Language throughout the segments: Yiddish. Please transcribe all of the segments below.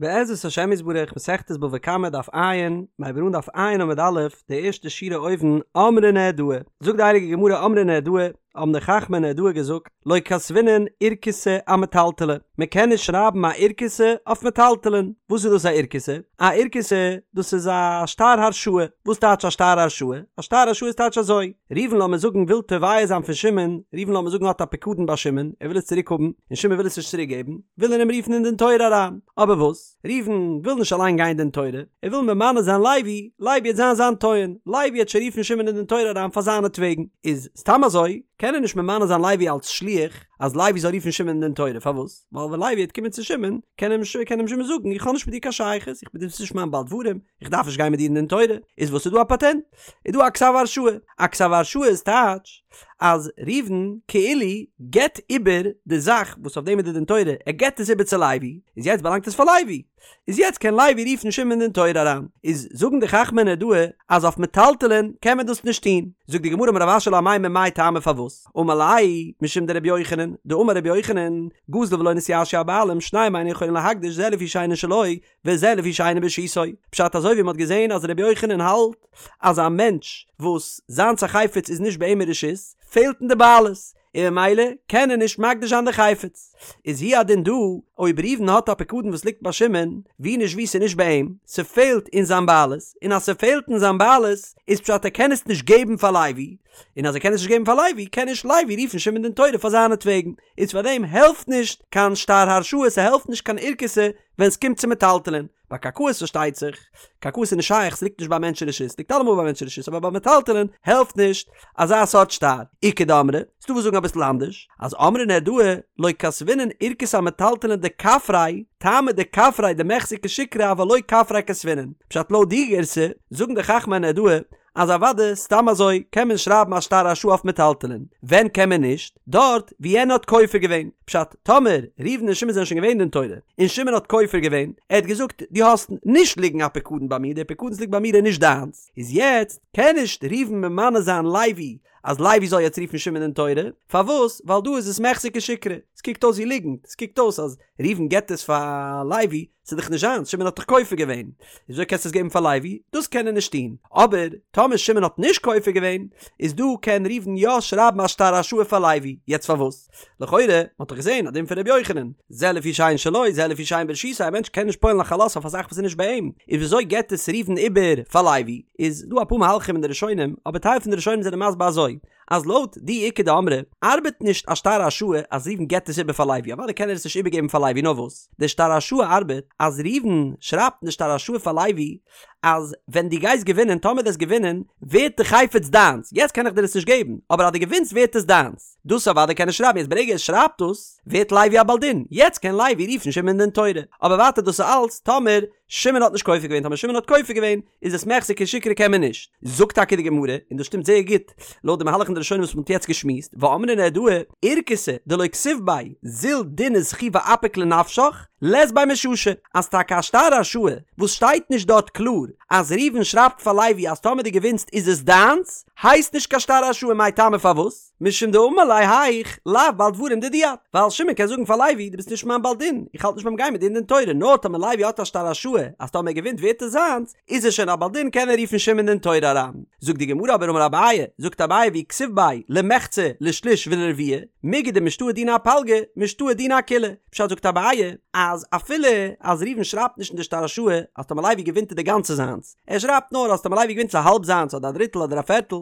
בעזרת השם יתברך מסכת בבא קמא דף ע', מיר הייבן אן דף ע' עמוד א', די ערשטע שורה אויבן, אמרי נהרדעא, זאגט די הייליגע גמרא אמרי נהרדעא, האבן די חכמי נהרדעא געזאגט, לא כתבינן אורכתא אמטלטלי, מען קען נישט שרייבן א אורכתא אויף מטלטלין, וואס איז דאס א אורכתא? א אורכתא דאס איז א שטר הרשאה, וואס טייטש א שטר הרשאה? א שטר הרשאה איז טייטש אזוי, ראובן לאמיר זאגן וויל תובע זיין פון שמעון, ראובן לאמיר זאגן האט א פיקדון ביי שמעון, ער וויל עס צוריק האבן, און שמעון וויל עס נישט צוריק געבן, וויל ער אים רופן אין דין תורה אריין, אבער וואס? ראובן וויל נישט אליין גיין אין דין תורה, ער וויל ממנה זיין לוי, לוי וועט זיין זיין טוען, לוי וועט שוין רופן שמעון אין דין תורה אריין פאר זיינעטוועגן, איז סתם אזוי קען ער נישט ממנה זיין לוי אלס שליח אז לוי זאל רופן שמעון אין דין תורה, פארוואס? ווייל ווען לוי וועט קומען צו שמעון, קען אים קען אים שמעון זאגן איך האב נישט מיט דיר קיין שייכות, איך בין דו ביסט נישט מיין בעל דברים, איך דארף נישט גיין מיט דיר אין דין תורה, איז וואס איז דא א פאטענט? איז דא א כתב הרשאה, א כתב הרשאה איז טייטש אז ראובן כאילו געבט איבער די זאך וואס אויף דעם איז די דין תורה, ער געבט עס איבער צו לוי, איז יעצט באלאנגט עס פאר לוי, איז יעצט קען לוי רופן שמעון אין דין תורה אריין, איז זאגן די חכמי נהרדעא אז אויף מטלטלין קען מען דאס נישט טון, זאגט די גמרא אמר רב אשי לאמימר מאי טעמא פארוואס, אמר ליה משום דרבי יוחנן, דאמר רבי יוחנן, גזל ולא נתייאשו הבעלים שניהם אינן יכולין להקדיש זה לפי שאינו שלו, וזה לפי שאינו ברשותו, פשט אזוי ווי מ'האט געזען אז רבי יוחנן האלט אז א מענטש וואס זיינס א חפץ איז נישט ביי אים אין רשות, פעלט אין די בעלות, און ממילא קען ער נישט מקדיש זיין די חפץ. איז הוא הדין דא, אויב ראובן האט א פיקדון וואס ליגט ביי שמעון, ווי נישט ווי ס'איז נישט ביי אים, ס'פעלט אין זיין בעלות, און אז ס'פעלט אין זיין בעלות, איז פשט ער קען עס נישט געבן פאר לוי, און אז ער קען עס נישט געבן פאר לוי, קען נישט לוי רופן שמעון דין תורה פאר זיינעטוועגן, איז פארדעם העלפט נישט קיין שטר הרשאה, ס'העלפט נישט קיין אורכתא, ווען ס'קומט צו מטלטלין. ביי קרקעות פארשטייט זיך, קרקעות איז נישט שייך, ס'ליגט נישט ביי מענטש אין רשות, ס'ליגט אלעמאל ביי מענטש אין רשות, אבער ביי מטלטלין העלפט נישט אזא סארט שטר. איכא דאמרי, ס'דא וואס זאגן אביסל אנדערש, אז אמרי נהרדעא לא כתבינן אורכתא אמטלטלין דכפריה, טעמא דכפריה דמיחזי כשיקרא אבל לא כפריה כתבינן. פשט לויט די גירסא, זאגן די חכמי נהרדעא, אז אוואדע סתם אזוי קען מען שרייבן א שטר הרשאה אויף מטלטלין, ווען קען מען נישט? דארט ווי יענער האט כופר געווען, פשט, טאמער ראובן און שמעון זענען שוין געווען אין דין תורה, און שמעון האט כופר געווען, ער האט געזאגט דו האסט נישט ליגן א פיקדון ביי מיר, דער פיקדון וואס ליגט ביי מיר איז נישט דיינס, איז יעצט קען נישט ראובן ממנה זיין לוי אז לוי זאל יעצט רופן שמעון אין דין תורה, פארוואס? ווייל דא איז עס מיחזי כשיקרא, עס קוקט אויס ווי ליגנט, עס קוקט אויס אז ראובן געבט עס פאר לוי, ס'איז דאך נישט זיינס, שמעון האט דאך כופר געווען, וויאזוי קענסטו עס געבן פאר לוי? דאס קען ער נישט טון. אבער טאמער שמעון האט נישט כופר געווען, איז דא קען ראובן יא שרייבן א שטר הרשאה פאר לוי. יעצט פארוואס? לכאורה, מ'האט דאך געזען א דין פון ר' יוחנן, זה לפי שאין שלו, זה לפי שאין ברשותו, א מענטש קען נישט פועל'ן א חלות אויף א זאך וואס איז נישט ביי אים, איז וויאזוי געבט עס ראובן איבער פאר לוי? איז דא אפאר מהלכים אין די ראשונים, אבער טייל פון די ראשונים זענען מסביר אזוי, אז לויט די איכא דאמרי ארבעט נישט א שטר הרשאה אז ראובן געבט עס איבער פאר לוי, אוודאי קען ער עס נישט איבערגעבן פאר לוי נאר וואס די שטר הרשאה ארבעט אז ראובן שרייבט אין די שטר הרשאה פאר לוי אז ווען דו גייסט געווינען טאמער דו וועסט געווינען ווערט די חפץ דיינס יעצט קען איך דיר עס נישט געבן אבער אז דו געווינסט ווערט עס דיינס דאס אוודאי קען ער שרייבן יעצט ברגע ער שרייבט דאס ווערט לוי א בעל דין יעצט קען לוי רופן שמעון אין דין תורה אבער ווייטער דאס איז אלץ טאמער שמעון האט נישט כופר געווען, טאמער שמעון האט כופר געווען, איז עס מיחזי כשיקרא קען מען נישט. זאגט טאקע די גמרא, און דאס שטימט זייער גוט לויט די מהלך אין די ראשונים וואס מען האט יעצט געשמועסט, ואמרי נהרדעא, אורכתא דלא כתיב ביה זיל דין וזכי ואפיק לנפשך, לית ביה מששא, אז טאקע א שטר הרשאה וואס שטייט נישט דארט קלאר אז ראובן שרייבט פאר לוי אז טאמער דו געווינסט איז עס דיינס, הייסט נישט קיין שטר הרשאה מאי טעמא פארוואס? משום דאמר ליה האיך לאו בעל דברים דידי את, ווייל שמעון קען זאגן פאר לוי דו ביסט נישט מיין בעל דין, איך האלט נישט ביים גיין מיט דיר אין דין תורה, נאר טאמער לוי האט א שטר הרשאה אז טאמער ער געווינט ווערט עס זיינס, איז ער שוין א בעל דין קען ער רופן שמעון אין דין תורה אריין. זאגט די גמרא אבער אמר אביי, זאגט אביי ואי כתיב ביה למחצה לשליש ולרביע, מיגו דמשתעי דינא אפלגא, משתעי דינא אכולה, פשט זאגט אביי אז אפילו אז ראובן שרייבט נישט אין די שטר הרשאה אז טאמער לוי געווינט איז די גאנצע זיינס, ער שרייבט נאר אז טאמער לוי געווינט איז א האלב זיינס אדער א דריטל אדער א פערטל,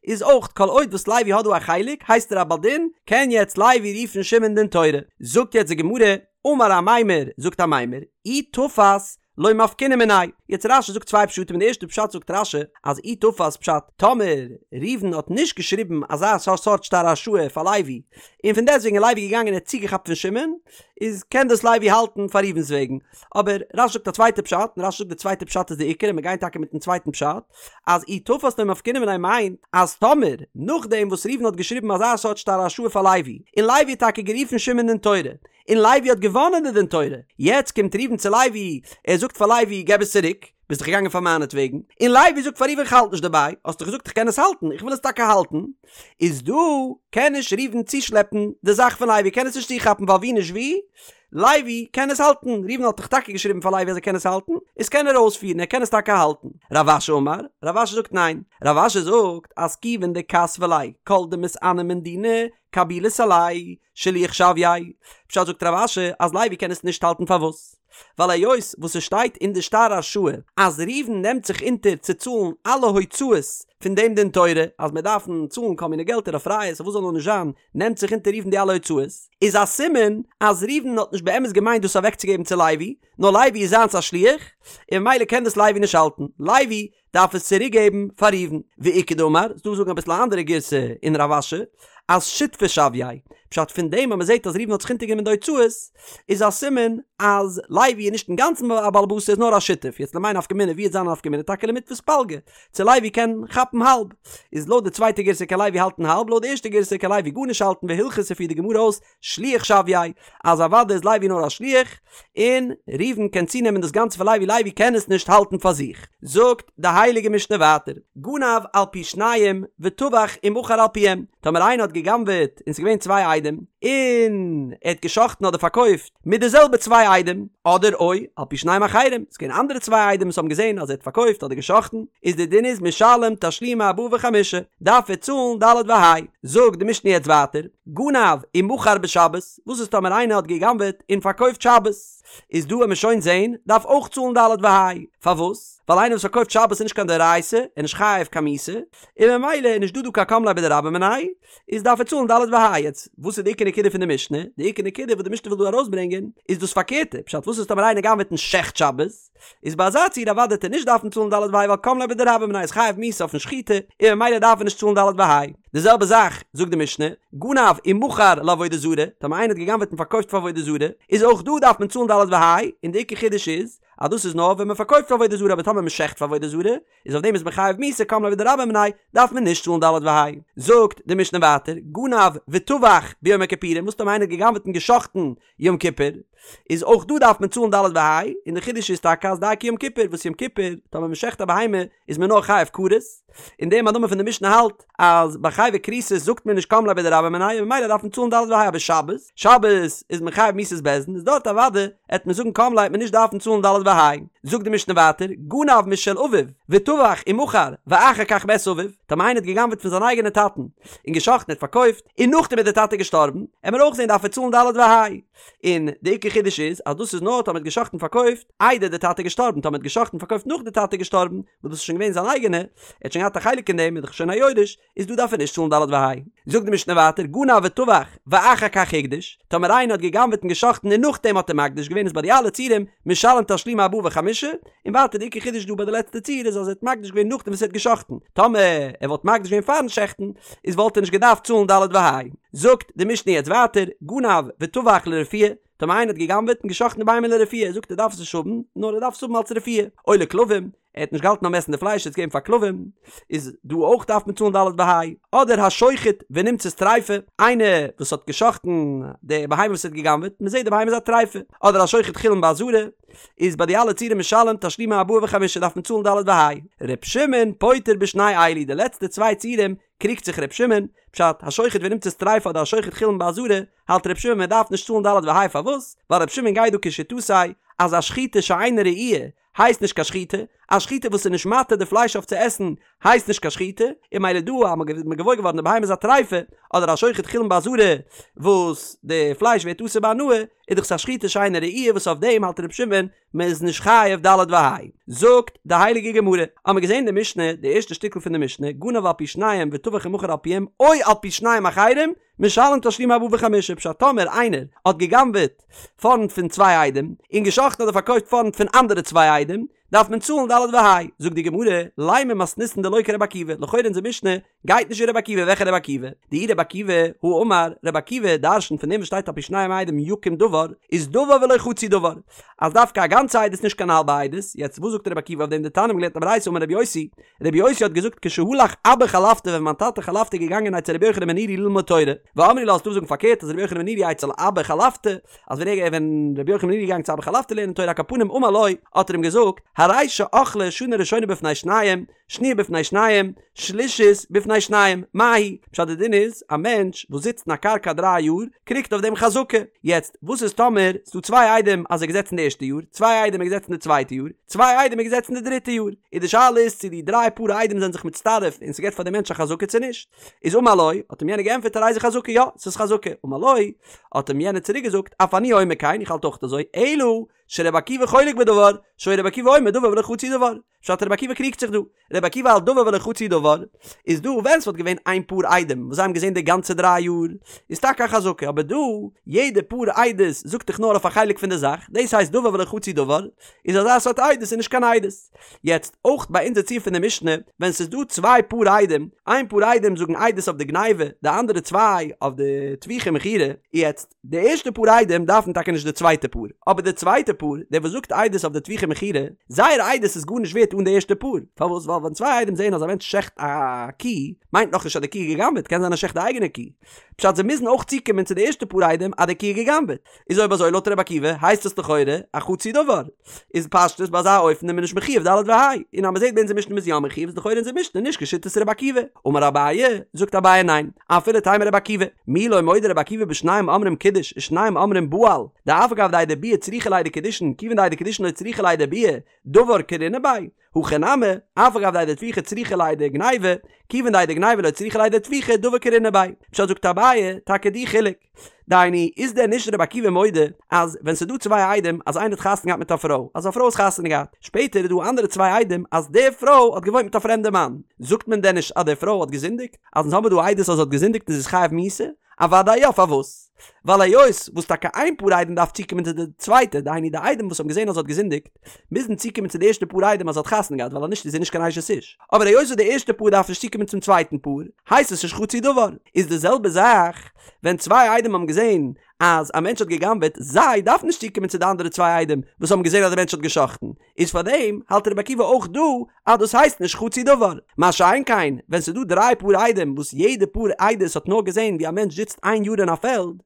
איז אויך כל עוד וואס לוי האט דא א חלק הייסט ער א בעל דין, קען יעצט לוי רופן שמעון אין דין תורה. זאגט יעצט די גמרא, אמר אמימר, זאגט אמימר, אי תפס לא מפקינן מיניה. יעצט רש"י זאגט צוויי פשטים אין די ערשטע פשט זאגט רש"י אז אי תפס פשט טאמער ראובן האט נישט געשריבן אזא סארט שטר הרשאה פאר לוי און פון דעסטוועגן איז לוי געגאנגען און האט צוגעכאפט פון שמעון איז קען דאס לוי האלטן פאר ראובן'ס וועגן אבער רש"י זאגט א צווייטע פשט און רש"י זאגט די צווייטע פשט איז די עיקר און מיר גייען טאקע מיטן צווייטן פשט אז אי תפס לא מפקינן מיניה מיינט אז טאמער נאכדעם וואס ראובן האט געשריבן אזא סארט שטר הרשאה פאר לוי און לוי האט טאקע גערופן שמעון אין דין תורה און לוי האט געוואנען די דין תורה יעצט קומט ראובן צו לוי ער זאגט פאר לוי געב עס צוריק ביסט דאך געגאנגען פאר מיינעטוועגן און לוי זאגט פאר ראובן כ'האלט נישט דערביי האסט דאך געזאגט איך קען עס האלטן איך וויל עס טאקע האלטן איז דא קען נישט ראובן צושלעפן די זאך פון לוי קען עס נישט צוכאפן ווייל ווי נישט ווי. לוי קען עס האלטן, ראובן האט דאך טאקע געשריבן פאר לוי אז ער קען עס האלטן, איז קען ער אויספירן, ער קען עס טאקע האלטן. רב אשי אמר, רב אשי זאגט ניין, רב אשי זאגט אז כיוון דכתבא ליה כל דמתעני מן דינא קבילית עליה, שליח שויה, פשט זאגט רב אשי אז לוי קען עס נישט האלטן פארוואס? ווייל היות וואס עס שטייט אין די שטר הרשאה אז ראובן נעמט זיך אונטער צו צאלן אלע הוצאות פון דעם דין תורה אז מיר דארפן צאלן כל מיני געלטער אויף ראיות אויף וואס זאל נאר נישט זיין נעמט זיך אונטער ראובן די אלע הוצאות איז א סימן אז ראובן האט נישט באמת געמיינט דאס אוועקצוגעבן צו לוי נאר לוי איז זיינס א שליח און ממילא קען דאס לוי נישט האלטן לוי דארף עס צוריק געבן פאר ראובן. ואיכא דאמר, ס'דא וואס זאגן אביסל א אנדערע גירסא אין רב אשי, אז שותפא שויה, פשט פון דעם אז מ'זעט אז ראובן האט זיך אונטערגענומען די הוצאות, איז א סימן אז לוי איז נישט אינגאנצן א בעל הבית ער איז נאר א שותף, יעצט למאי נפקא מינה ווי וועט זיין א נפקא מינה טאקע למיתפס פלגא, צו לוי קען כאפן האלב, איז לויט די צווייטע גירסא קען לוי האלטן האלב לויט די ערשטע גירסא קען לוי גארנישט האלטן והלכתא פירט די גמרא אויס שליח שויה, אז אוודאי איז לוי נאר א שליח, און ראובן קען צונעמען דאס גאנצע פון לוי, לוי קען עס נישט האלטן פאר זיך. זאגט די הייליגע משנה ווייטער, גנב על פי שניים וטבח ומכר על פיהם, טאמער איינער האט גע'גנב'עט און ס'איז געווען צוויי עדים, און ער האט גע'שחט'ן אדער פארקויפט מיט די זעלבע צוויי עדים, אדער או על פי שניים אחרים, ס'איז געווען אנדערע צוויי עדים וואס האבן געזען אז ער האט פארקויפט אדער גע'שחט'ן, איז די דין איז משלם תשלומי ארבעה וחמישה, דארף ער צאלן ד' וה'. זאגט די משנה יעצט ווייטער, גנב ומכר בשבת, וואס איז טאמער איינער האט גע'גנב'עט און פארקויפט שבת? איז דא וועט מען שוין זעהן, דארף אויך צאלן ד' וה'. פארוואס? ווייל איינער וואס פארקויפט שבת איז נישט קיין דאורייתא, ער איז נישט חייב קיין מיתה, און ממילא איז נישט דא דא קיין קם ליה בדרבה מיניה, איז דארף ער צאלן ד' וה'. יעצט, וואס איז די עיקר נקודה פון די משנה? די עיקר נקודה וואס די משנה וויל דא ארויסברענגען, איז דאס פארקערטע, פשט וואס איז טאמער איינער גנב'עט און שעכט שבת? איז ביי אזא ציור אוודאי וועט ער נישט דארפן צאלן ד' וה' ווייל קם ליה בדרבה מיניה איז חייב מיתה אויפן שחיטה און ממילא דארף ער נישט צאלן ד' וה'. די זעלבע זאך זאגט די משנה, גנב ומכר לעבודה זרה, טאמער איינער האט גע'גנב'עט און פארקויפט פאר עבודה זרה, איז אויך דא דארף מען צאלן ד' וה', און די עיקר חידוש איז אז דאס איז נאר ווען מען פארקויפט פאר עבודה זרה אבער טאמער מען שעכט פאר עבודה זרה איז אויף דעם איז מען חייב מיתה קם ליה בדרבה מיניה דארף מען נישט צאלן ד' וה'. זאגט די משנה ווייטער, גנב וטבח ביום הכיפורים, וואס טאמער איינער האט גע'גנב'עט און גע'שחט'ן יום כיפור, איז אויך דא דארף מען צאלן ד' וה', און די חידוש איז טאקע אז דייקא יום כיפור, וואס יום כיפור טאמער מען שעכט א בהמה איז מען נאר חייב כרת, און דער מאן דאמר פון די משנה האלט אז ביי חייבי כריתות זאגט מען נישט קם ליה בדרבה מיניה און ממילא דארף מען צאלן ד' וה', אבער שבת, שבת איז מען חייב מיתת בית דין איז דארט אוודאי עט מען זאגן קם ליה עט מען נישט דארפן צאלן ד' וה'. זאגט די משנה ווייטער, גנב משל אביו וטבח ומכר ואחר כך מת אביו, טאמער איינער האט גע'גנב'עט פון זיין אייגענע טאטן און גע'שחט'ן און פארקויפט, און נאכדעם איז דער טאטע געשטארבן, עמיר אויך זען דארף ער צאלן ד' וה'. און די עיקר חידוש איז אז דאס איז נאר טאמער האט גע'שחט'ן און פארקויפט איידער דער טאטע איז געשטארבן, טאמער האט גע'שחט'ן און פארקויפט נאך דער טאטע איז געשטארבן, וואס דאס איז שוין געווען זיין אייגענע, ער האט שוין געהאט א חלק אין דעם, איז דאך שוין א יורש, איז דא דארף ער נישט צאלן ד' וה'. זאגט די משנה ווייטער, גנב וטבח ואחר כך הקדיש, טאמער איינער האט גע'גנב'עט און גע'שחט'ן און נאכדעם האט ער מקדיש געווען איז ביי די אלע ציורים משלם תשלומי ארבעה וחמישה, און ווייטער די עיקר חידוש דא ביי די לעצטע ציור איז אז ער האט מקדיש געווען נאכדעם וואס ער האט גע'שחט'ן, טאמער ער וואלט מקדיש געווען פארן שעכטן איז וואלט ער נישט געדארפט צאלן ד' וה'. זאגט די משנה יעצט ווייטער, גנב וטבח לרפואה, טאמער איינער האט גע'גנב'עט און גע'שחט'ן די בהמה לרפואה, זאגט ער דארף עס נישט האבן, נאר ער דארף עס האבן אלס רפואה, או לכלבים, ער האט נישט געהאלטן ביים עסן די פלייש ער האט עס געגעבן פאר כלבים, איז דא אויך דארף מען צאלן ד' וה', אדער השוחט ונמצאת טריפה, איינער וואס האט גע'שחט'ן די בהמה וואס ער האט גע'גנב'עט, מען זעט די בהמה איז א טריפה, אדער השוחט חולין בעזרה, איז ביי די אלע ציורים משלם תשלומי ארבעה וחמישה דארף מען צאלן ד' וה'. ר' שמעון פוטר בשני אלו, די לעצטע צוויי ציורים קריגט זיך ר' שמעון, פשט, השוחט ונמצאת טריפה אדער השוחט חולין בעזרה, האלט ר' שמעון מען דארף נישט צאלן ד' וה' פארוואס? ווייל ר' שמעון גייט דא כשיטתו אז א שחיטה שאינה ראויה הייסט נישט קיין שחיטה, א שחיטה וואס איז נישט מתיר די פלייש אויף צו עסן הייסט נישט קיין שחיטה, און ממילא דא אז מ'איז געוואויר געווארן די בהמה איז א טריפה, אדער השוחט חולין בעזרה וואס די פלייש ווערט אסור בהנאה, איז דאך עס א שחיטה שאינה ראויה וואס אויף דעם האלט ר' שמעון מען איז נישט חייב ד' וה'. זאגט די הייליגע גמרא, האמער געזען די משנה, די ערשטע שטיקל פון די משנה, גנב על פי שניים וטבח ומכר על פיהם, או על פי שניים אחרים, משלם תשלומי ארבעה וחמישה, פשט טאמער איינער האט גע'גנב'עט פארנט פון צוויי עדים, און גע'שחט'ן אדער פארקויפט פארנט פון אנדערע צוויי עדים, דארף מען צאלן ד' וה'. זאגט די גמרא, לימא מתניתין דלא כרבי עקיבא, לכאורה אונזער משנה גייט נישט ווי רבי עקיבא, וועלכע רבי עקיבא? דאי רבי עקיבא הא אמר, רבי עקיבא דרש'נט פון דעם וואס שטייט על פי שניים עדים יקום דבר, איז דבר ולא חצי דבר, אז דווקא א גאנצע עדות נישט קיין האלבע עדות, יעצט וואס זאגט רבי עקיבא אויף דעם דתניא מ'האט געלערנט א ברייתא אמר רבי יוסי, רבי יוסי האט געזאגט כשהלך אבא חלפתא ווען מיין טאטע חלפתא איז געגאנגען אצל רבי יוחנן בן נורי ללמוד תורה, ואמרי לה ס'דא וואס זאגן פארקערט אז רבי יוחנן בן נורי אצל אבא חלפתא, אז ווען ער ווען רבי יוחנן בן נורי איז געגאנגען צו אבא חלפתא לערנען תורה על כל פנים אמר לו האט ער אים געזאגט הרי שאכלה שנה ראשונה בפני שניים שניה בפני שניים שלישית בפני. בפני שניים, מהו? פשט די דין איז, א מענטש וואס זיצט אין א קרקע דריי יאר, קריגט אויף דעם חזקה. יעצט, וואס איז טאמער ס'דא צוויי עדים אז ער איז געזעצן די ערשטע יאר, צוויי עדים ער איז געזעצן די צווייטע יאר, צוויי עדים ער איז געזעצן די דריטע יאר, איז די שאלה איז צו די דריי פאר עדים זענען זיך מצטרף און ס'געט פאר די מענטש א חזקה צו נישט. איז אמר לו, האט אים יענער געענטפערט הרי זו חזקה, יא, ס'איז חזקה. אמר לו, האט אים יענער צוריק געזאגט, אף אני אומר כן, איך האלט אויך אזוי, אלא שרבי עקיבא חולק בדבר, שהיה רבי עקיבא אומר דבר ולא חצי דבר. פשט רבי עקיבא קריגט זיך דא. רבי עקיבא האלט דבר ולא חצי דבר, איז דא ווען ס'וואלט געווען איין פאר עדים וואס זיי האבן געזען די גאנצע דריי יאר, איז טאקע א חזקה, אבער דא, יעדע פאר עדות זאגט דאך נאר אויף א חלק פון די זאך, דאס הייסט דבר ולא חצי דבר, איז אזא סארט עדות איז נישט קיין עדות. יעצט, אויך ביי אונזער ציור פון די משנה, ווען ס'איז דא צוויי פאר עדים, איין פאר עדים זאגן עדות אויף די גניבה, די אנדערע צוויי אויף די טביחה ומכירה, יעצט, די ערשטע פאר עדים דארפן טאקע נישט די צווייטע פאר, אבער די צווייטע פאר, דער וואס זאגט עדות אויף די טביחה ומכירה, זייער עדות איז גארנישט ווערט אן די ערשטע פאר, פארוואס? ווייל ווען צוויי עדים זעען אז א מענטש שעכט א קי, מיינט נאכנישט אז די קי איז גע'גנב'עט, קען זיין ער שעכט די אייגענע קי. פשט זיי מוזן אויך צוקומען צו די ערשטע פאר עדים אז די קי איז גע'גנב'עט. איז אויב אזוי לויט רבי עקיבא הייסט עס לכאורה א חצי דבר. איז פשטות ביי אזא אופן איז מען נישט מחויב ד' וה'. און אז מ'זעט ביי אונזער משנה מ'איז יא מחויב איז לכאורה אונזער משנה נישט כשיטת רבי עקיבא. אמר אביי, זאגט אביי ניין, אפילו תימא רבי עקיבא, מי לא מודה רבי עקיבא בשניים אומרים קידש ושניים אומרים בעל, דאף על גב דעדי ביאה צריכי לעדי קידושין כיוון דעדי קידושין לא צריכי לעדי ביאה, דבר קרינא ביה, הכא נמי, אף על גב דעדי טביחה צריכי לעדי גניבה, כיוון דעדי גניבה לא צריכי לעדי טביחה, דבר קרינא ביה. פשט זאגט אביי, טאקע די חילוק. דהיינו, איז דען נישט רבי עקיבא מודה אז ווען ס'איז דא צוויי עדים אז איינער האט חתונה געהאט מיט א פרוי, אז א פרוי האט חתונה געהאט, שפעטער איז דא אנדערע צוויי עדים אז די פרוי האט געוואוינט מיט א פרעמדע מאן, זאגט מען דען נישט אז די פרוי האט געזינדיגט? אז אונז האבן דא עדות אז זי האט געזינדיגט און זי איז חייב מיתה? אוודאי יא, פארוואס? ווייל היות וואס טאקע איין פאר עדים דארף צוקומען צו די צווייטע, דהיינו די עדים וואס האבן געזען אז זי האט געזינדיגט, מוזן צוקומען צו די ערשטע פאר עדים אז זי האט חתונה געהאט ווייל אז נישט איז זי נישט קיין אשת איש, אבער היות וואס די ערשטע פאר דארף נישט צוקומען צום צווייטן פאר, הייסט עס נישט חצי דבר. איז די זעלבע זאך ווען צוויי עדים האבן געזען אז א מענטש האט גע'גנב'עט, זיי דארפן נישט צוקומען צו די אנדערע צוויי עדים וואס האבן געזען אז די מענטש האט גע'שחט'ן, איז פאר דעם האלט רבי עקיבא אויך דא אז דאס הייסט נישט חצי דבר. מה שאין כן ווען ס'איז דא דריי פאר עדים וואס יעדע פאר עדות האט נאר געזען ווי א מענטש זיצט איין יאר אין א פעלד,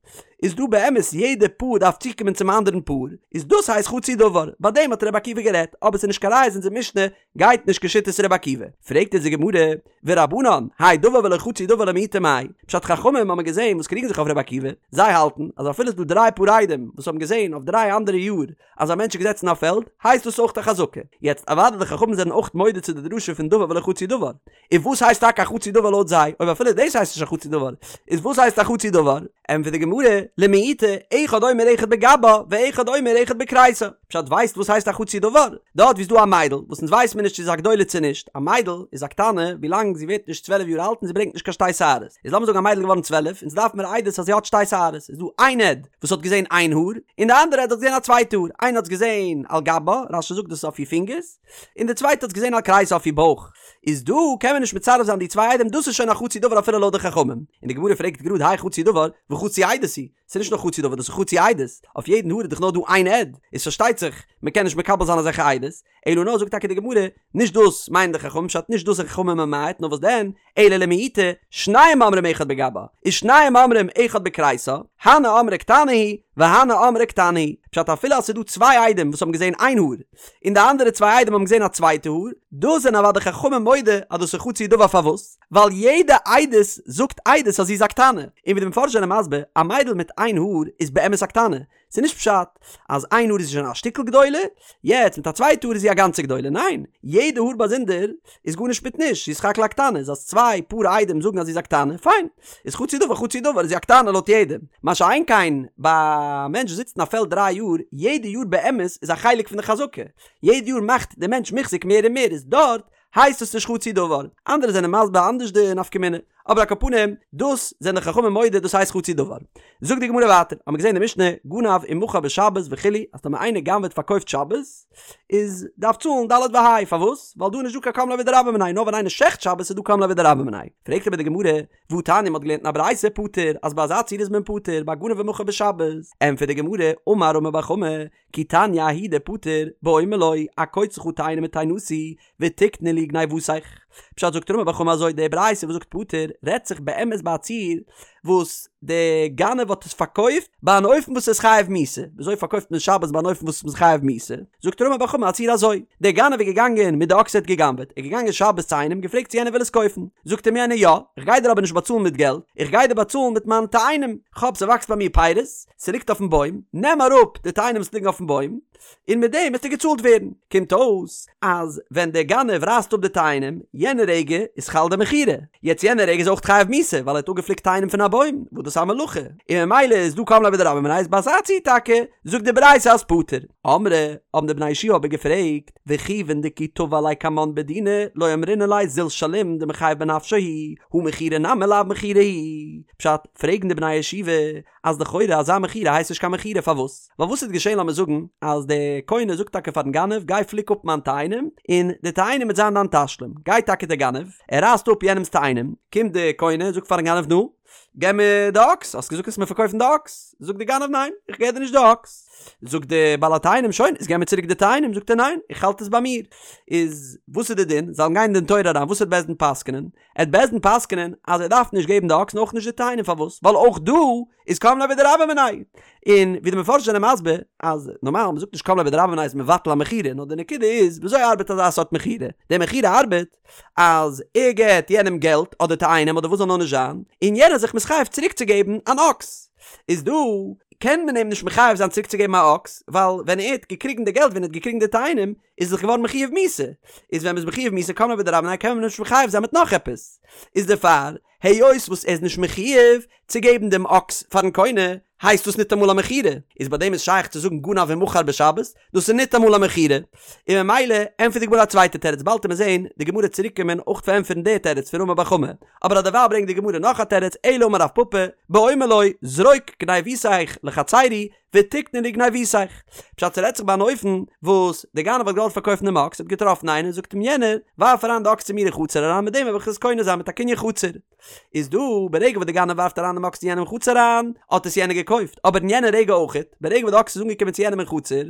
איז דא באמת יעדע פאר דארף צוקומען צום אנדערן פאר, איז דאס הייסט חצי דבר, ביי דעם האט רבי עקיבא גערעדט, אבער ס'איז נישט קיין ראיה אז אונזער משנה גייט נישט כשיטת רבי עקיבא. פרעגט אונז די גמרא, ורבנן, האי דבר ולא חצי דבר למעוטי מאי? פשט חכמים האבן געזען וואס קריגן זיך אויף רבי עקיבא, זיי האלטן אז אפילו ס'איז דא דריי פאר עדים וואס האבן געזען אויף דריי אנדערע יאר אז א מענטש איז געזעצן אין א פעלד, הייסט דאס אויך א חזקה. יעצט, אוודאי די חכמים זענען אויך מודה צו די דרשה פון דבר ולא חצי דבר. און וואס הייסט טאקע א חצי דבר לויט זיי? אויב אפילו דאס הייסט נישט א חצי דבר, איז וואס הייסט א חצי דבר? ענטפערט די גמרא, למעוטי, אחד אומר אחד בגבה, ואחד אומר אחד בכריסה. פשט ווייסט וואס הייסט א חצי דבר? דארט ווי ס'איז דא א מיידל, וואס אונז ווייסט מיר נישט צו זי איז א גדולה צו נישט, א מיידל איז א קטנה ווילאנג זי ווערט נישט צוועלף יאר אלט און זי ברענגט נישט קיין שתי שערות. איז לאמיר זאגן א מיידל איז געווארן צוועלף, אונז דארף מיר עדות אז זי האט שתי שערות, איז דא איין עד וואס האט געזען איין האר, און די אנדערע עד האט געזען א צווייטע האר, איינער האט עס געזען על גבה, רש"י זאגט דאס איז אויף איר פינגערס, און די צווייטע האט עס געזען על כריסה אויף איר בויך, איז דא קען מען נישט מצרף זיין די צוויי עדים דאס איז שוין א חצי דבר אפילו לויט די חכמים, און די גמרא פרעגט גראד האי חצי דבר וחצי עדות הוא, ס'איז נישט נאר חצי דבר דאס איז חצי עדות, אויף יעדן האר איז דאך נאר דא איין עד, איז פארשטייט זיך מען קען נישט מקבל זיין אזעלכע עדות, אלא נאר זאגט טאקע די גמרא, נישט דאס מיינען די חכמים פשט נישט דאס איז חכמים ממעט נאר וואס דען, אלא למעוטי, שניים אומרים אחד בגבה, ושניים אומרים אחד בכריסה, הני אמרי קטנה היא, והני אמרי קטנה היא, פשט אפילו אז ס'איז דא צוויי עדים וואס האבן געזען איין האר, און די אנדערע צוויי עדים האבן געזען א צווייטע האר, דא זענען אוודאי חכמים מודה אז דאס איז חצי דבר פארוואס? ווייל יעדע עדות זאגט עדות אז זי איז א קטנה, און ווי די מפרשים זענען מסביר, א מיידל מיט איין האר איז באמת א קטנה, ס'איז נישט פשט אז איין האר איז שוין א שטיקל גדולה, יעצט מיט א צווייטע האר איז זי א גאנצע גדולה, ניין, יעדע האר באזונדער איז גארנישט מיט נישט, זי איז סך הכל א קטנה, איז אז צוויי פאר עדים זאגן אז זי איז א קטנה, פיין, איז חצי דבר חצי דבר איז זי א קטנה לויט יעדעם, מה שאין כן ביי א מענטש וואס זיצט אין א פעלד דריי יאר, יעדע יאר באמת איז א חלק פון די חזקה, יעדע יאר מאכט די מענטש מוחזק מער און מער, איז דארט הייסט עס נישט חצי דבר, אנדערע זענען מסביר אנדערש די נפקא מינה, אבער על כל פנים, דאס זענען די חכמים מודה דאס הייסט חצי דבר. זאגט די גמרא ווייטער, האמיר געזען אין די משנה, גנב ומכר בשבת וכו', אז טאמער איינער גנב'עט פארקויפט שבת, איז דארף צאלן ד' וה', פארוואס? ווייל דא איז נישט דא קיין קם ליה בדרבה מיניה, נאר ווען איינער שעכט שבת איז דא קם ליה בדרבה מיניה. פרעגט אבער די גמרא, והתניא מ'האט געלערנט אין א ברייתא פטור, אז ביי אזא ציור איז מען פטור, ביי גנב ומכר בשבת. ענטפערט די גמרא, אמר רמי בר חמא, כי תניא ההיא דפטור, באומר לו, אקוץ לך תאנה מתאנתי, ותקנה לי גניבתך. פשט זאגט רמי בר חמא אזוי, די ברייתא וואס זאגט פטור, רעדט זיך באמת ביי א ציור וואס די גנב האט עס פארקויפט ביי אן אופן וואס איז חייב מיתה, וויאזוי פארקויפט מען שבת ביי אן אופן וואס איז חייב מיתה? זאגט רמי בר חמא א ציור אזוי, דער גנב איז געגאנגען מיט די אקס ער האט גע'גנב'עט, ער איז געגאנגען שבת צו איינעם געפרעגט צו יענער וויל עס קויפן, זאגט אים יענער יא, איך גיי דיר אבער נישט באצאלן מיט געלט, איך גיי דיר באצאלן מיט מיינע תאנים, כ'האב ס'וואקסט ביי מיר פירות, ס'ליגט אויפן בוים, נעם אראפ די תאנים וואס ליגן אויפן בוים, און מיט דעם וועסטו געצאלט ווערן. קומט אויס אז ווען דער גנב רייסט אפ די תאנים, יענע רגע איז חל די מכירה. יעצט יענע רגע איז אויך חייב מיתה, ווייל ער האט אפגעפליקט תאנים פון א בוים, וואס דאס איז א מלאכה, און ממילא איז דא קם ליה בדרבה מיניה איז ביי אזא ציור טאקע, זאגט די ברייתא אז פטור. אמרי, האבן די בני ישיבה אבער געפרעגט, וכיוון דכי תבע ליה קמן בדינא, לא אמרינן ליה זיל שלים דמיחייב בנפשיה הוא, הא מכירה נמי לאו מכירה היא. פשט, פרעגן די בני ישיבה, אז לכאורה אזא מכירה הייסט נישט קיין מכירה פארוואס? ווייל וואס איז געשען לאמיר זאגן אז די קונה זאגט טאקע פארן גנב גיי פליק אפ מיין תאנים און די תאנים וועט זיין דיין תשלום, גייט טאקע די גנב ער רייסט אפ יענעמס תאנים, קומט די קונה זאגט פארן גנב נו געב מיר די אקס האסט געזאגט וועסט מיר פארקויפן די אקס, זאגט די גנב ניין איך געב דיר נישט די אקס, זאגט די בעל התאנים שוין איז געב מיר צוריק די תאנים, זאגט ער ניין איך האלט עס ביי מיר, איז וואס איז די דין זאלן גיין אין דין תורה אריין וואס וועט בית דין פסק'נען? עט בית דין פסק'נען אז ער דארף נישט געבן די אקס און אויך נישט די תאנים פארוואס ווייל אויך דא איז קם ליה בדרבה מיניה און ווי די מפרשים זענען מסביר אז נארמאל מ'זאגט נישט קם ליה בדרבה מיניה איז מבטל א מכירה נאר די נקודה איז וויאזוי ארבעט אזא סארט מכירה די מכירה ארבעט אז ער געט יענעם געלט אדער תאנים אדער וואס זאל נאר נישט זיין און יענער איז זיך מתחייב צוריק צו געבן אן אקס איז דא קען מען אים נישט מחייב זיין צוריק צו געבן א אקס ווייל ווען ער האט געקריגן די געלט ווען ער האט געקריגן די תאנים איז דאך געווארן מחויב מיתה, איז ווען מ'איז מחויב מיתה קם ליה בדרבה מיניה קען מען נישט מחייב זיין מיט נאך עפעס, איז דערפאר היות וואס ער איז נישט מחויב צו געבן דעם אקס פארן קונה הייסט דאס ניטאמאל א מכירה, איז ביי דעם איז שייך צו זאגן גנב ומכר בשבת, דאס איז ניטאמאל א מכירה, און ממילא ענטפערט די גמרא א צווייטע תירוץ באלד עמיר זעהן די גמרא צוריק קומען אויך פארענטפערן די תירוץ פון רמי בר חמא, אבער אדערווייל ברענגט די גמרא נאך א תירוץ אלא אמר רב פפא, באומר לו זרוק גניבותיך לחצרי ותקנה לי גניבותיך. פשט ס'רעדט זיך ביי אן אופן וואס דער גנב האט געוואלט פארקויפן דעם אקס, האט געטראפן איינער, זאגט אים יענער, ווארף אריין די אקס צו מיר אין חצר אריין מיט דעם וועל איך עס קונה זיין מיט א קנין חצר. איז דא, ברגע וואס דער גנב ווארפט אריין דעם אקס צו יענעם אין חצר אריין, האט עס יענער געקויפט, אבער אין יענע רגע אויכעט, ברגע וואס די אקס איז אנגעקומען צו יענעם אין חצר,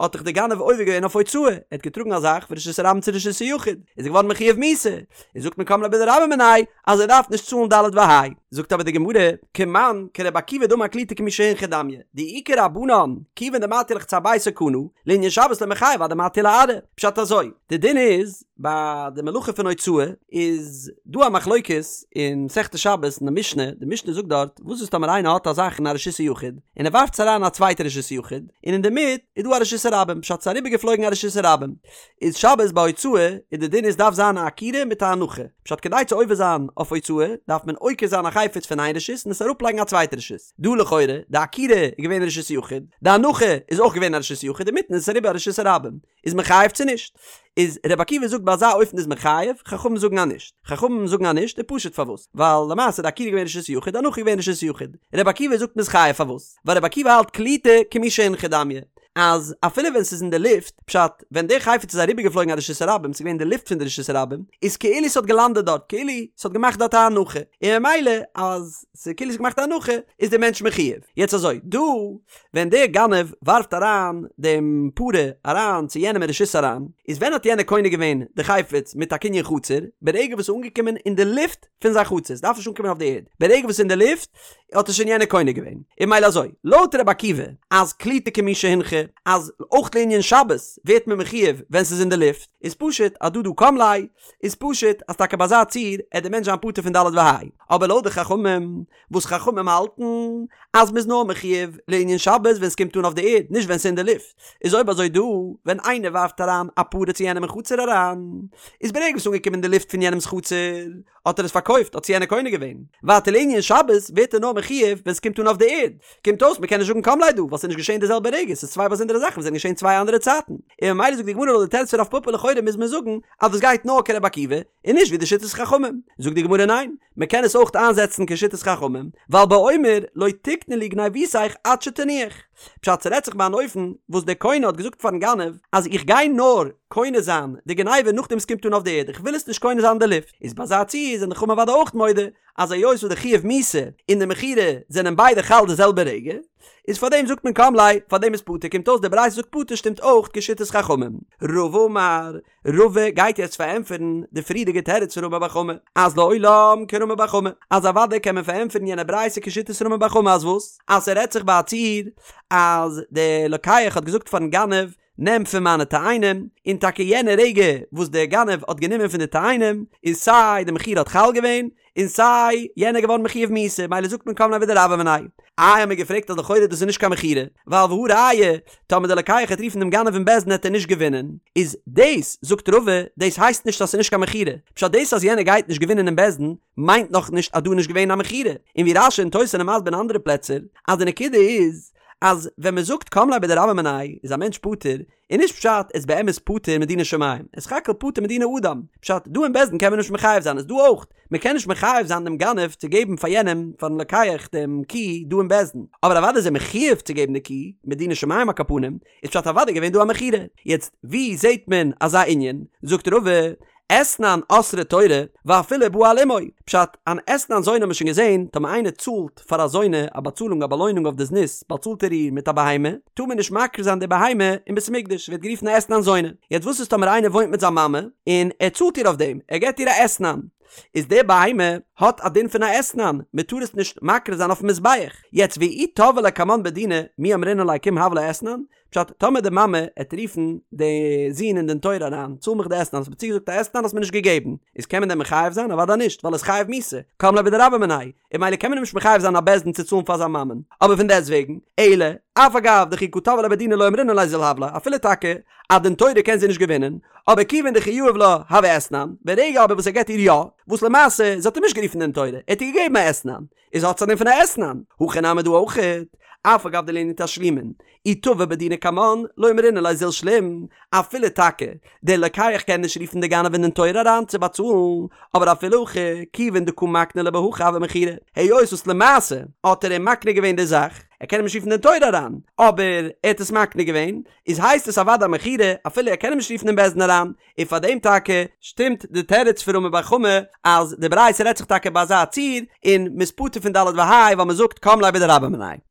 האט דאך דער גנב עובר געווען אויף הוצאה, ער האט געטראגן א זאך פון רשות הרבים צו רשות היחיד, איז ער געווארן מחויב מיתה, און זאגט מען קם ליה בדרבה מיניה אז ער דארף נישט צאלן ד' וה'. זאגט אבער די גמרא, כמאן כרבי עקיבא דאמר קלוטה כמי שהונחה דמיא, דאי כרבנן, כיוון דמטיא לחצר ביתו קנה, לענין שבת לא מיחייב עד דמטיא לארעא. פשט אזוי, די דין איז, ביי די מלאכה פון הוצאה איז דא א מחלוקת אין מסכת שבת אין די משנה, די משנה זאגט דארט, וואס איז טאמער איינער האט א זאך אין א רשות היחיד, און ער ווארפט עס אריין אין א צווייטע רשות היחיד, און אינדערמיט איז דא א רשות הרבים, פשט ס'איז אריבערגעפלויגן א רשות הרבים, איז שבת ביי הוצאה איז די דין איז דארף זיין א עקירה מיט א הנחה, פשט כדי צו עובר זיין אויף הוצאה דארף מען עוקר זיין א חפץ פון איין רשות און עס אראפלייגן א צווייטע רשות, דא לכאורה די עקירה איז געווען רשות יחיד, די הנחה איז אויך געווען א רשות יחיד אינמיטן איז עס אריבער א רשות הרבים, איז מען חייב צו נישט? איז רבי עקיבא זאגט ביי אזא אופן איז מען חייב, חכמים זאגן אז נישט. חכמים זאגן אז נישט איז פשוט פארוואס? ווייל למעשה די עקירה איז געווען רשות יחיד, די הנחה איז געווען רשות יחיד. רבי עקיבא זאגט מ'איז חייב פארוואס? ווייל רבי עקיבא האלט קלוטה כמי שהונחה דמיא, אז אפילו ווען ס'איז אין די לופט, פשט, ווען די חפץ איז אריבערגעפלויגן א רשות הרבים, ס'איז געווען אין די לופט פון די רשות הרבים, איז כאילו ס'האט געלאנדעט דארט, כאילו ס'האט געמאכט דארט א הנחה, און ממילא אז ס'איז כאילו ס'האט געמאכט א הנחה, איז דער מענטש מחויב. יעצט אזוי, דא ווען דער גנב ווארפט אריין דעם פרה אריין צו יענעם אין רשות אריין, איז ווען האט יענער קונה געווען די חפץ מיט א קנין חצר? ברגע וואס ס'איז אנגעקומען אין די לופט פון זיין חצר, ס'דארף נישט אנקומען אויף די ערד, ברגע וואס ס'איז אין די לופט האט עס שוין יענער קונה געווען. און ממילא אזוי, לויט רבי עקיבא, אז קלוטה כמי שהונחה, אז אויך לענין שבת ווערט מען מחויב ווען ס'איז אין די לופט, איז פשוט אז דא דא קם ליה, איז פשוט אז טאקע ביי אזא ציור עט דער מענטש זיין פטור פון ד' וה'. אבער לויט די חכמים, וואס חכמים האלטן אז מ'איז נאר מחויב לענין שבת ווען ס'קומט אן אויף די ערד, נישט ווען ס'איז אין די לופט, איז אויב אזוי דא ווען איינער ווארפט אריין א פרה צו יענעם אין חצר אריין, איז ברגע וואס ס'איז אנגעקומען אין די לופט פון יענעמ'ס חצר, האט ער עס פארקויפט, האט עס יענער קונה געווען. ווייטער לענין שבת ווערט ער נאר מחויב ווען ס'קומט אן אויף די ערד. קומט אויס מ'קען נישט זאגן קם ליה דא, ווייל ס'איז נישט געשען די זעלבע רגע, ס'איז צוויי באזונדערע זאכן וואס זענען געשען צוויי אנדערע צייטן. און ממילא זאגט די גמרא לויט די תירוץ פון רב פפא לכאורה מוז מען זאגן אז דאס גייט נאר כרבי עקיבא, און נישט ווי די שיטת חכמים. זאגט די גמרא ניין, מען קען עס אויך איינזעצן כשיטת חכמים, ווייל באומר לא תקנה לי גניבותיך עד שתניח. פשט ס'רעדט זיך ביי אן אופן וואס דער קונה האט געזאגט פארן גנב אז איך גיי נאר קונה זיין די גניבה נאכדעם ס'קומט אן אויף די ערד איך וויל עס נישט קונה זיין אין די לופט, איז ביי אזא ציור זענען די חכמים אוודאי אויך מודה אז היות וואס די חיוב מיתה און די מכירה זענען ביידע חל די זעלבע רגע, איז פארדעם זאגט מען קם ליה, פארדעם איז פטור, קומט אויס די ברייתא זאגט פטור שטימט אויך כשיטת חכמים. רבא אמר, רבא גייט יעצט פארענטפערן די פריערדיגע תירוץ פון רמי בר חמא, אז לעולם כרמי בר חמא, אז אוודאי קען מען פארענטפערן יענע ברייתא כשיטת רמי בר חמא אז וואס? אז ס'רעדט זיך ביי א ציור אז די לוקח האט געזאגט פארן גנב נעם פון מיינע תאנים, און טאקע יענע רגע וואס דער גנב האט גענומען פון די תאנים, איז סיי די מכירה האט חל געווען, און סיי יענער געווארן מחויב מיתה, מילא זאגט מען קם ליה בדרבה מיניה. איי האט מען געפרעגט אז לכאורה דאס איז נישט קיין מכירה, ווייל והא ראיה, טאמער דער לוקח העט רופן דעם גנב אין בית דין העט ער נישט געווינען, איז דאס, זאגט רבא, דאס הייסט נישט אז ס'איז נישט קיין מכירה, פשט דאס אז יענער גייט נישט געווינען אין בית דין, מיינט נאך נישט אז דא איז נישט געווען א מכירה, און ווי רש"י און תוס' זענען מסביר אין אנדערע פלעצער, אז די נקודה איז, אז ווען מען זאגט קם ליה בדרבה מיניה איז א מענטש פטור, איז נישט פשט ער איז באמת פטור מדיני שמים, ער איז סך הכל פטור מדיני אדם, פשט דא אין בית דין קען מען נישט מחייב זיין איז דא אויך, מען קען נישט מחייב זיין דעם גנב צו געבן פאר יענעם פארן לוקח דעם קי דא אין בית דין, אבער אוודאי איז ער מחויב צו געבן די קי, מדיני שמים על כל פנים, איז פשט אוודאי געווען דא א מכירה, יעצט ווי זעט מען אזא ענין, זאגט רבא, אתנן אסרה תורה ואפילו בא על אמו, פשט, אן אתנן זונה האט מען שוין געזען, טאמער איינער צאלט פאר א זונה א באצאלונג א באלוינונג אויף די זנות באצאלט ער איר מיט א בהמה, טאר מען נישט מקריב זיין די בהמה אין בית המקדש, ווערט גערופן א אתנן זונה. יעצט וואס איז טאמער איינער וואוינט מיט זיין מאמע און ער צאלט איר אויף דעם, ער געבט איר א אתנן, איז די בהמה האט א דין פון א אתנן, מען טאר עס נישט מקריב זיין אויפן מזבח, יעצט ואי תבעי ליה קמן בדינא מי אמרינן ליה קום הב לה אתנן, פשט, טאמער די מאמע עט רופן די זון אין דין תורה אריין, צאל מיך די אתנן, האסט מיר צוגעזאגט א אתנן האסט מיר נישט געגעבן, איז קען מען דען מחייב זיין? אוודאי נישט, ווייל ער איז חייב מיתה, קם ליה בדרבה מיניה, און ממילא קען מען אים נישט מחייב זיין א בית דין צו צאלן פאר זיין מאמען, אבער פון דעסט וועגן, אלא, אף על גב דכי קא תבעי ליה בדינא לא אמרינן ליה זיל הב לה, אפילו טאקע א דין תורה קען זי נישט געווינען, אבער כיוון דכי יהיב לה הוי אתנן, ברגע אבער וואס ער געבט איר יא, וואס למעשה, זי האט אים נישט גערופן דין תורה, ער האט איר געגעבן א אתנן, איז האט עס א דין פון א אתנן, הכא נמי דא אויכעט, אף על גב דלענין תשלומין, אי תבע בדינא קמן, לא אמרינן ליה זיל שלים, אפילו טאקע דער לוקח קען נישט רופן די גנב אין דין תורה אריין צו באצאלן, אבער אפילו הכי, כיוון דקא מקני ליה בהכי הוי מכירה, היות וואס למעשה האט ער אים מקנה געווען די זאך, ער קען אים נישט רופן אין דין תורה אריין, אבער ער האט עס מקנה געווען, איז הייסט עס אוודאי א מכירה, אפילו ער קען אים נישט רופן אין בית דין אריין, און פאר דעם טאקע שטימט די תירוץ פון רמי בר חמא אז די ברייתא רעדט זיך טאקע ביי אזא ציור און מ'איז פטור פון ד' וה' ווייל מ'זאגט קם ליה בדרבה מיניה.